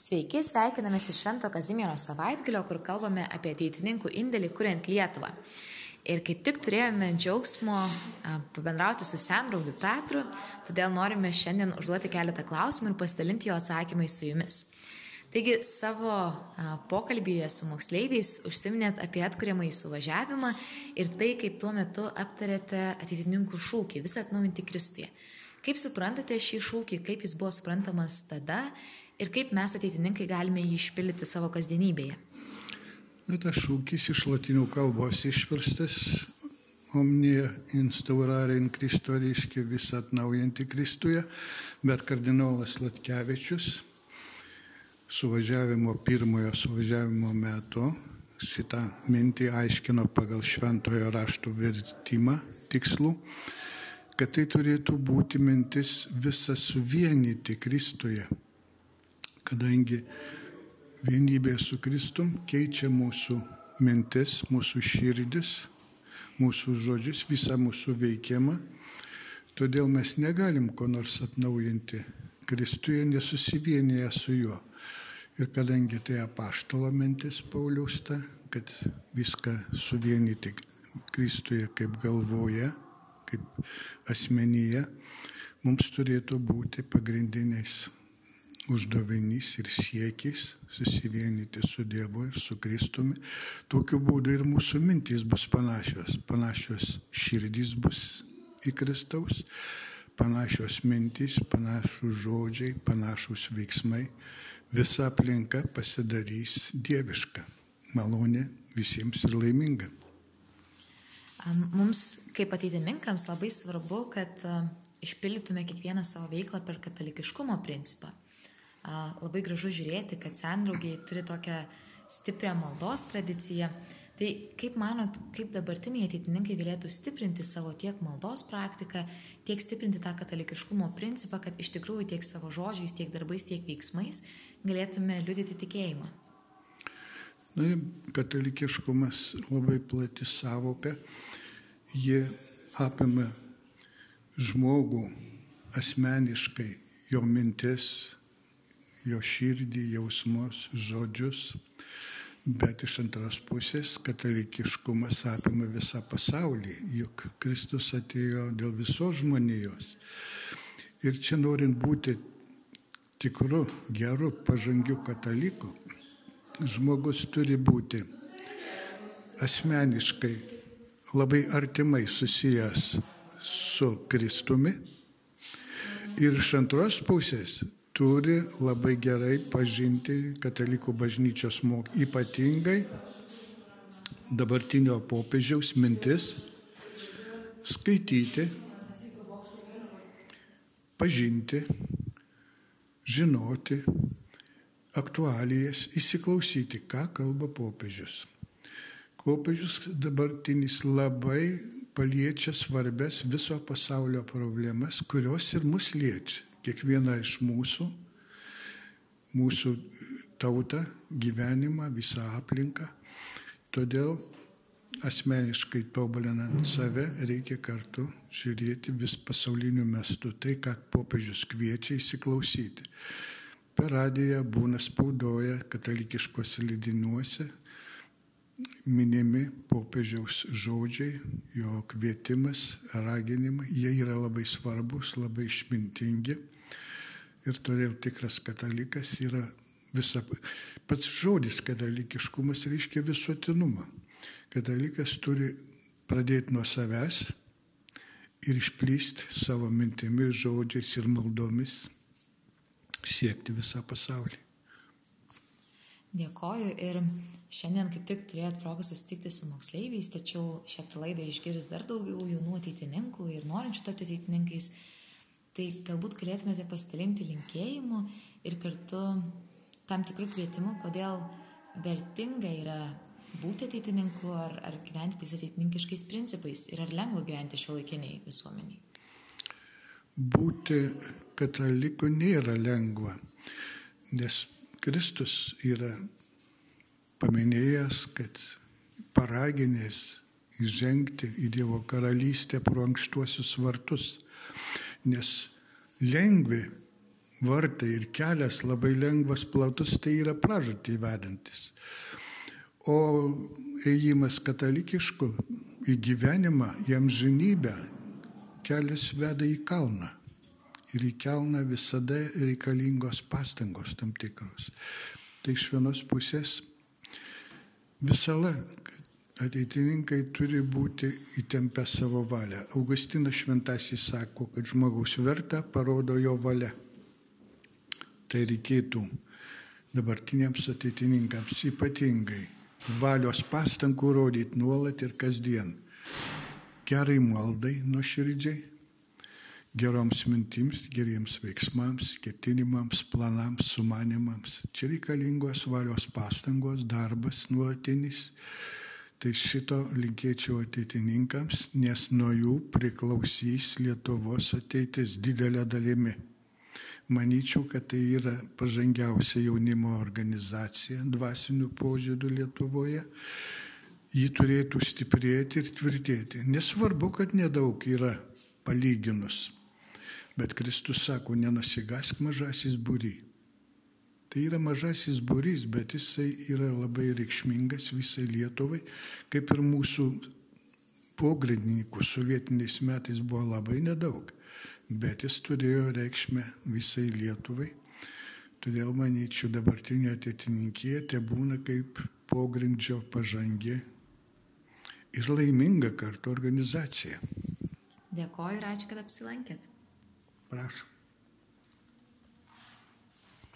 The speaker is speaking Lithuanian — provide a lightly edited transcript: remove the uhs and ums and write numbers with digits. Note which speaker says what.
Speaker 1: Sveiki, sveikinamės iš Švento Kazimiero savaitgalio, kur kalbame apie ateitininkų indėlį kuriant Lietuvą. Ir kaip tik turėjome džiaugsmo pabendrauti su sendraugiu Petru, todėl norime šiandien užduoti keletą klausimų ir pasidalinti jo atsakymais su jumis. Taigi savo pokalbyje su moksleiviais užsiminėt apie atkuriamąjį suvažiavimą ir tai, kaip tuo metu aptarėte ateitininkų šūkį visą atnaujinti Kristuje. Kaip suprantate šį šūkį, kaip jis buvo suprantamas tada ir kaip mes ateitininkai galime jį išpildyti savo kasdienybėje?
Speaker 2: Tas šūkis iš lotynų kalbos išverstas omnia instaurare in Christo, reiškia visą atnaujinti Kristuje, bet kardinolas Latkevičius pirmojo suvažiavimo metu šitą mintį aiškino pagal šventojo rašto vertimą tikslų, kad tai turėtų būti mintis visą suvienyti Kristuje, kadangi vienybė su Kristum keičia mūsų mintis, mūsų širdis, mūsų žodžius, visą mūsų veikimą. Todėl mes negalim ko nors atnaujinti Kristuje, nesusivienyje su juo. Ir kadangi tai apaštalo mintis Pauliaus, kad viską suvienyti Kristuje kaip galvoje, kaip asmenyje, mums turėtų būti pagrindiniais uždavinys ir siekis susivienyti su Dievu ir su Kristumi. Tokiu būdu ir mūsų mintys bus panašios širdys bus į Kristaus, panašios mintys, panašus žodžiai, panašus veiksmai. Visa aplinka pasidarys dieviška, malonė visiems ir laiminga.
Speaker 1: Mums kaip ateitininkams labai svarbu, kad išpildytume kiekvieną savo veiklą per katalikiškumo principą. Labai gražu žiūrėti, kad sendraugiai turi tokią stiprią maldos tradiciją. Tai kaip manot, kaip dabartiniai ateitininkai galėtų stiprinti savo tiek maldos praktiką, tiek stiprinti tą katalikiškumo principą, kad iš tikrųjų tiek savo žodžiais, tiek darbais, tiek veiksmais galėtume liudyti tikėjimą?
Speaker 2: Katalikiškumas labai plati savoka. Ji apima žmogų asmeniškai, jo mintis, jo širdį, jausmus, žodžius, bet iš antros pusės katalikiškumas apima visą pasaulį, juk Kristus atėjo dėl visos žmonijos. Ir čia norint būti tikru, geru, pažangiu kataliku, žmogus turi būti asmeniškai labai artimai susijęs su Kristumi ir iš antros pusės turi labai gerai pažinti katalikų bažnyčios ypatingai dabartinio popiežiaus mintis, skaityti, pažinti, žinoti aktualijas, įsiklausyti, ką kalba popiežius. Popiežius dabartinis labai paliečia svarbes viso pasaulio problemas, kurios ir mus liečia. Kiekvieną iš mūsų tautą, gyvenimą, visą aplinką. Todėl asmeniškai tobulinant save reikia kartu žiūrėti vis pasauliniu mastu tai, ką popiežius kviečia įsiklausyti. Per radiją būna spaudoje, katalikiškose leidiniuose minimi popiežiaus žodžiai, jo kvietimas, raginimai. Jie yra labai svarbus, labai išmintingi. Ir todėl tikras katalikas yra pats žodis katalikiškumas reiškia visuotinumą. Katalikas turi pradėti nuo savęs ir išplysti savo mintimis, žodžiais ir maldomis, siekti visą pasaulį.
Speaker 1: Dėkoju ir šiandien kaip tik turėjot progą susitikti su moksleiviais, tačiau šią laidą išgirs dar daugiau jaunų ateitininkų ir norinčių tapti ateitininkais. Tai galbūt galėtumėte pasidalinti linkėjimu ir kartu tam tikrų kvietimų, kodėl vertinga yra būti ateitininku ar gyventi tais ateitininkiškais principais ir ar lengva gyventi šiuolaikiniai visuomeniai.
Speaker 2: Būti kataliku nėra lengva, nes Kristus yra paminėjęs, kad paraginės įžengti į Dievo karalystę pro ankštuosius vartus, nes lengvi vartai ir kelias labai lengvas, platus, tai yra pražūtį vedantis. O ėjimas katalikišku į gyvenimą, į amžinybę, kelias veda į kalną. Ir į kalną visada reikalingos pastangos tam tikros. Tai iš vienos pusės visada ateitininkai turi būti įtempę savo valią. Augustinas Šventasis sako, kad žmogaus vertę parodo jo valia. Tai reikėtų dabartiniams ateitininkams ypatingai valios pastangų rodyti nuolat ir kasdien. Gerai maldai nuoširdžiai, geroms mintims, geriems veiksmams, ketinimams, planams, sumanimams. Čia reikalingos valios pastangos, darbas nuolatinis. Tai šito linkėčiau ateitininkams, nes nuo jų priklausys Lietuvos ateitis didelė dalimi. Manyčiau, kad tai yra pažangiausia jaunimo organizacija dvasinių požiūrių Lietuvoje. Ji turėtų stiprėti ir tvirtėti. Nesvarbu, kad nedaug yra palyginus. Bet Kristus sako, nenusigask mažasis būry. Tai yra mažasis būrys, bet jisai yra labai reikšmingas visai Lietuvai, kaip ir mūsų pogrindininkų sovietiniais metais buvo labai nedaug. Bet jis turėjo reikšmę visai Lietuvai. Todėl, manyčiau, dabartinė ateitininkija te būna kaip pogrindžio pažangi ir laiminga kartu organizacija.
Speaker 1: Dėkoju ir ačiū, kad apsilankėt.
Speaker 2: Prašom.